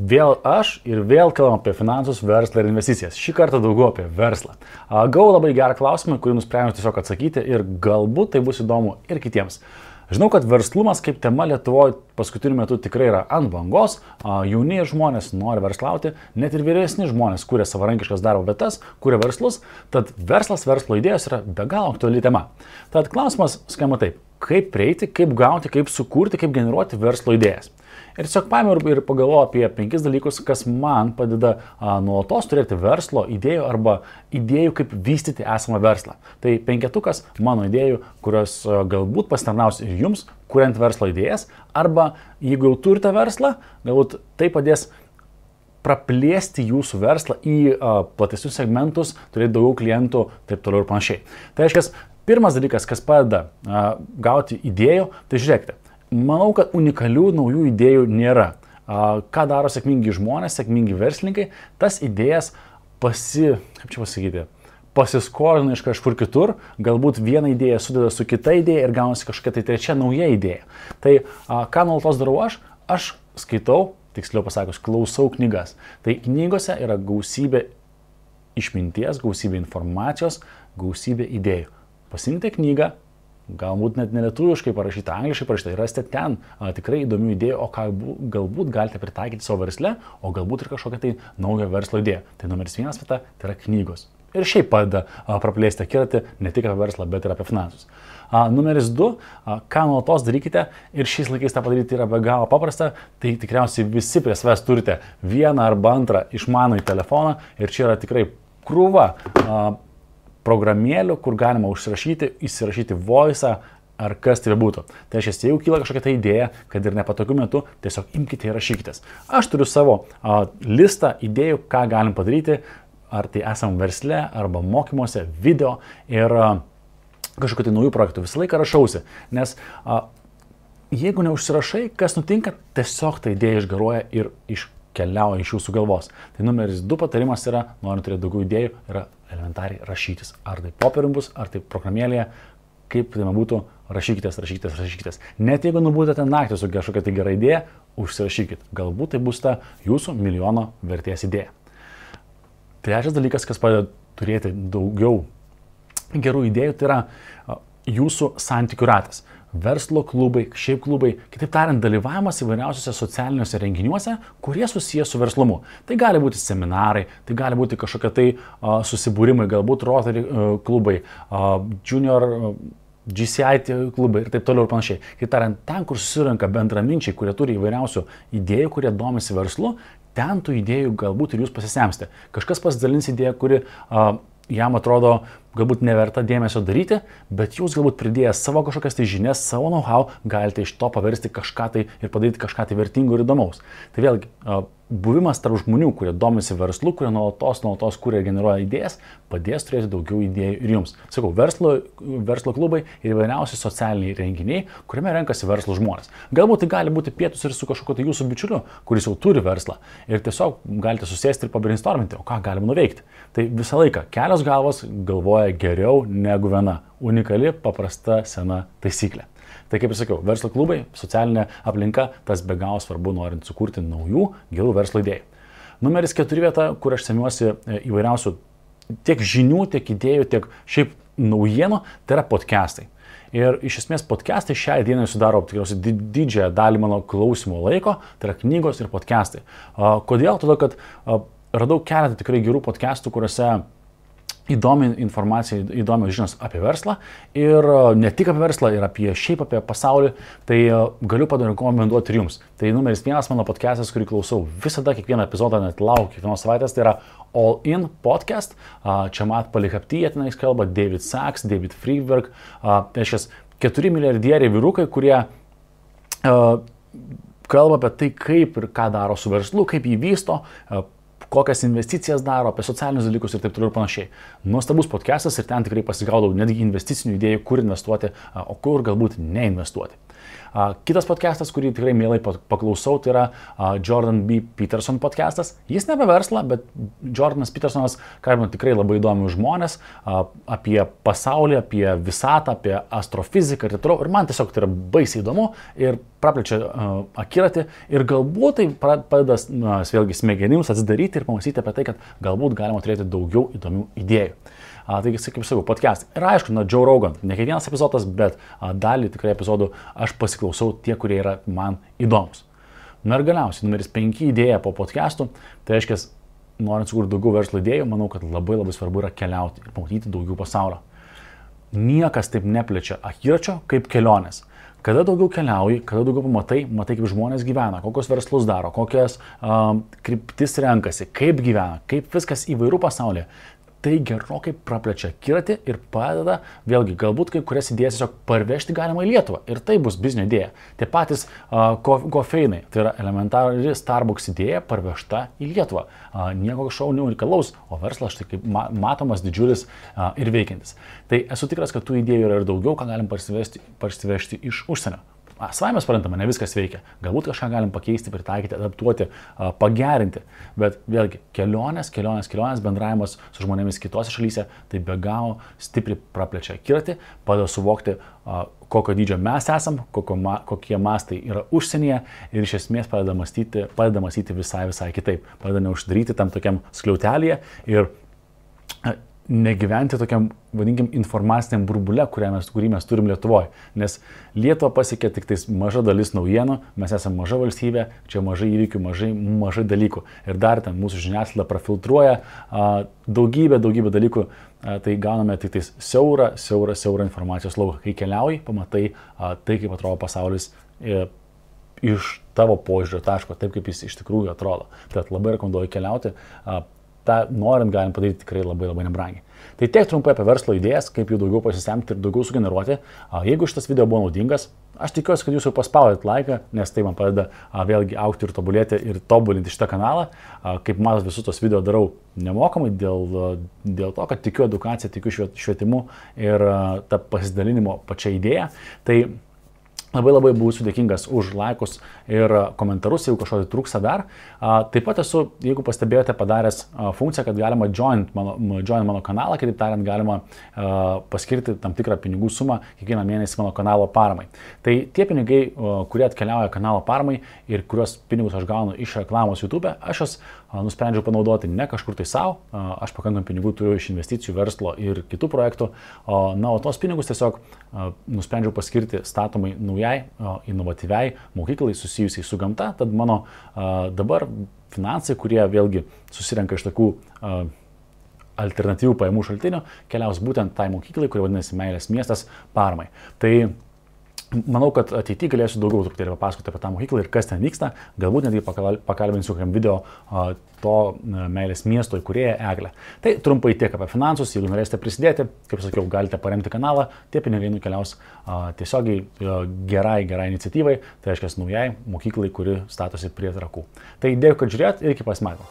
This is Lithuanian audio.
Vėl aš ir vėl kalbam apie finansus, verslą ir investicijas. Šį kartą daugiau apie verslą. Gavau labai gerą klausimą, kurį nusprendžiau tiesiog atsakyti ir galbūt tai bus įdomu ir kitiems. Žinau, kad verslumas kaip tema Lietuvoje paskutiniu metu tikrai yra ant bangos, jauni žmonės nori verslauti, net ir vyresni žmonės kuria savarankiškas darbo vietas, kuria verslus, tad verslas, verslo idėjos yra be galo aktuali tema. Tad klausimas skamba taip, kaip prieiti, kaip gauti, kaip sukurti, kaip generuoti verslo idėjas. Ir tiesiog paėmiau ir pagalvojau apie 5 dalykus, kas man padeda nuolatos turėti verslo idėjų arba idėjų, kaip vystyti esamą verslą. Tai 5 mano idėjų, kurios galbūt pasitarnaus ir jums, kuriant verslo idėjas, arba jeigu jau turite verslą, galbūt tai padės praplėsti jūsų verslą į platesnius segmentus, turėti daugiau klientų, taip toliau ir panašiai. Tai reiškia, pirmas dalykas, kas padeda gauti idėjų, tai žiūrėkite. Manau, kad unikalių naujų idėjų nėra. Ką daro sėkmingi žmonės, sėkmingi verslininkai, tas idėjas pasiskolina iš kažkur kitur, galbūt vieną idėją sudeda su kita idėja ir gaunasi kažkokia tai trečia nauja idėja. Tai ką nuolatos darau aš skaitau, tiksliau pasakius, klausau knygas. Tai knygose yra gausybė išminties, gausybė informacijos, gausybė idėjų. Pasiimkite knygą, galbūt net nelietuviškai parašyta, angliškai parašyta ir rasite ten tikrai įdomių idėjų, o ką galbūt galite pritaikyti savo versle, o galbūt ir kažkokią tai naują verslo idėją. Tai numeris 1 vieta, tai yra knygos. Ir šiaip padeda praplėsti akiratį ne tik apie verslą, bet ir apie finansus. Numeris 2, ką nuolatos darykite ir šiais laikais tą padaryti yra be galo paprasta, tai tikriausiai visi prie savęs turite vieną arba antrą išmanųjį telefoną ir čia yra tikrai krūva programėlių, kur galima užsirašyti, įsirašyti voice'ą ar kas tai bebūtų. Tai reiškia, jeigu kyla kažkokia ta idėja, kad ir nepatogiu metu, tiesiog imkite ir rašykitės. Aš turiu savo listą idėjų, ką galim padaryti, ar tai esam versle, arba mokymuose, video ir kažkokių tai naujų projektų. Visą laiką rašausi, nes jeigu neužsirašai, kas nutinka, tiesiog ta idėja išgaruoja ir keliauja iš jūsų galvos. Tai numeris 2 patarimas yra, norint turėti daugiau idėjų, yra elementariai rašytis. Ar tai popierium bus, ar tai programėlėje, kaip tai būtų, rašykitės. Net jeigu nubūdate naktį su kažkokia tai gera idėja, užsirašykit. Galbūt tai bus ta jūsų milijono vertės idėja. Trečias dalykas, kas padeda turėti daugiau gerų idėjų, tai yra jūsų santykių ratas. Verslo klubai, šiaip klubai, kitaip tariant, dalyvavimas įvairiausiuose socialiniuose renginiuose, kurie susijęs su verslumu. Tai gali būti seminarai, tai gali būti kažkokie tai susibūrimai, galbūt Rotary klubai, Junior GCI klubai ir taip toliau ir panašiai. Kitaip tariant, ten, kur susirenka bendraminčiai, kurie turi įvairiausių idėjų, kurie domisi verslu, ten tų idėjų galbūt ir jūs pasisemsite. Kažkas pasidalins idėją, kuri jam atrodo galbūt neverta dėmesio daryti, bet jūs galbūt pridėjęs savo kažkokias tai žinias, savo know-how, galite iš to paversti kažką tai ir padaryti kažką tai vertingo ir įdomaus. Tai vėlgi, buvimas tarp žmonių, kurie domisi verslu, kurie nuolatos kuria ir generuoja idėjas, padės turėti daugiau idėjų ir jums. Sakau, verslo klubai ir įvairiausi socialiniai renginiai, kuriame renkasi verslo žmonės. Galbūt tai gali būti pietus ir su kažkokiu tai jūsų bičiuliu, kuris jau turi verslą ir tiesiog galite susėsti ir pabrainstorminti, o ką galima nuveikti. Tai visą laiką kelios galvos galvoja geriau negu viena. Unikali, paprasta, sena taisyklė. Tai kaip ir sakiau, verslo klubai, socialinė aplinka, tas be galo svarbu norint sukurti naujų gerų verslo idėjų. Numeris 4 vieta, kur aš semiuosi įvairiausių tiek žinių, tiek idėjų, tiek šiaip naujienų, tai yra podcastai. Ir iš esmės podcastai šiai dienai sudaro tikriausiai didžiąją dalį mano klausimų laiko, tai yra knygos ir podcastai. Kodėl? Todėl, kad radau keletą tikrai gerų podcastų, kuriuose įdomi informacija, įdomios žinios apie verslą ir ne tik apie verslą, ir šiaip apie pasaulį, tai galiu parekomenduoti ir jums. Tai numeris 1 mano podcastas, kurį klausau visada, kiekvieną epizodą, net laukiu kiekvienos savaitės, tai yra All In podcast. Čia Mat Palihapty, tenais kalba David Sachs, David Friedberg, tai šias 4 milijardieriai vyrukai, kurie kalba apie tai, kaip ir ką daro su verslu, kaip jį vysto, kokias investicijas daro, apie socialinius dalykus ir taip toliau ir panašiai. Nuostabus podcastas ir ten tikrai pasigaudau netgi investicinių idėjų, kur investuoti, o kur galbūt neinvestuoti. Kitas podcastas, kurį tikrai mielai paklausau, tai yra Jordan B. Peterson podcastas. Jis ne apie verslą, bet Jordanas Petersonas kalbina tikrai labai įdomius žmonės apie pasaulį, apie visatą, apie astrofiziką ir taip toliau. Ir man tiesiog tai yra baisiai įdomu ir praplečia akiratį ir galbūt tai padeda vėlgi smegenims atsidaryti ir pamastyti apie tai, kad galbūt galima turėti daugiau įdomių idėjų. Taigi, kaip sakau, podcastai. Ir aišku, Joe Rogan, ne kiekvienas epizodas, bet dalį tikrai epizodų aš pasiklausau tie, kurie yra man įdomus. Na ir galiausiai, numeris 5 idėja po podcastų, tai reiškia, norint sukurti daugiau verslo idėjų, manau, kad labai svarbu yra keliauti ir pamatyti daugiau pasaulio. Niekas taip neplečia akiračio kaip kelionės. Kada daugiau keliauji, kada daugiau matai kaip žmonės gyvena, kokios verslus daro, kokias kryptis renkasi, kaip gyvena, kaip viskas įvairių pasaulyje. Tai gerokai praplečia akiratį ir padeda, vėlgi, galbūt kai kurias idėjas tiesiog parvežti galima į Lietuvą. Ir tai bus biznio idėja. Tie patys kofeinai, tai yra elementari Starbucks idėja parvežta į Lietuvą. Nieko kažko unikalaus, o verslas štai kaip matomas, didžiulis ir veikiantis. Tai esu tikras, kad tų idėjų yra ir daugiau, ką galim parsivežti iš užsienio. Savaime suprantama, ne viskas veikia. Galbūt kažką galim pakeisti, pritaikyti, adaptuoti, pagerinti. Bet vėlgi, kelionės, bendravimas su žmonėmis kitose šalyse, tai be galo stipriai praplečia akiratį, padeda suvokti, kokio dydžio mes esam, kokie mastai yra užsienyje ir iš esmės padeda mąstyti visai kitaip. Padeda neuždaryti tam tokiam skliautelėje ir negyventi tokiam, vadinkim, informaciniam burbule, kurį mes turim Lietuvoje. Nes Lietuva pasiekia tik tais maža dalis naujienų, mes esame maža valstybė, čia mažai įvykių, mažai dalykų. Ir dar ten mūsų žiniasklaida prafiltruoja daugybę dalykų, tai gauname tik tais siaurą informacijos lauką. Kai keliauji, pamatai tai, kaip atrodo pasaulis iš tavo požiūrio taško, taip kaip jis iš tikrųjų atrodo. Tad labai rekomenduoju keliauti. tą norint galim padaryti tikrai labai nebrangiai. Tai tiek trumpai apie verslo idėjas, kaip jų daugiau pasisemti ir daugiau sugeneruoti. Jeigu šitas video buvo naudingas, aš tikiuosi, kad jūs jau paspaudėt laiką, nes tai man padeda vėlgi augti ir tobulėti ir tobulinti šitą kanalą. Kaip matot, visus tos video darau nemokamai dėl to, kad tikiu edukacija, tikiu švietimu ir tą pasidalinimo pačią idėją. Tai labai būsiu dėkingas už laikus ir komentarus, jeigu kažko trūksta dar. Taip pat esu, jeigu pastebėjote, padaręs funkciją, kad galima join mano kanalą, kitaip tariant, galima paskirti tam tikrą pinigų sumą kiekvieną mėnesį mano kanalo paramai. Tai tie pinigai, kurie atkeliauja kanalo paramai ir kuriuos pinigus aš gaunu iš reklamos YouTube, aš jas nusprendžiau panaudoti ne kažkur tai savo, aš pakankamai pinigų turiu iš investicijų, verslo ir kitų projektų, o tos pinigus tiesiog nusprendžiau paskirti statomai naujai, inovatyviai mokyklai susijusiai su gamta, tad mano dabar finansai, kurie vėlgi susirenka iš tokių alternatyvių pajamų šaltinių, keliaus būtent tai mokyklai, kuri vadinasi Meilės miestas paramai. Tai manau, kad ateityje galėsiu daugiau truputėlį papasakoti apie tą mokyklą ir kas ten vyksta. Galbūt netgi pakalbinsiu kokiam video to Meilės miesto įkūrėją Eglę. Tai trumpai tiek apie finansus. Jeigu norėsite prisidėti, kaip sakiau, galite paremti kanalą. Tie pinigai nukeliaus tiesiogiai gerai iniciatyvai. Tai reiškia naujai mokyklai, kuri statosi prie Trakų. Tai dėkui, kad žiūrėjot ir iki pasimatymo.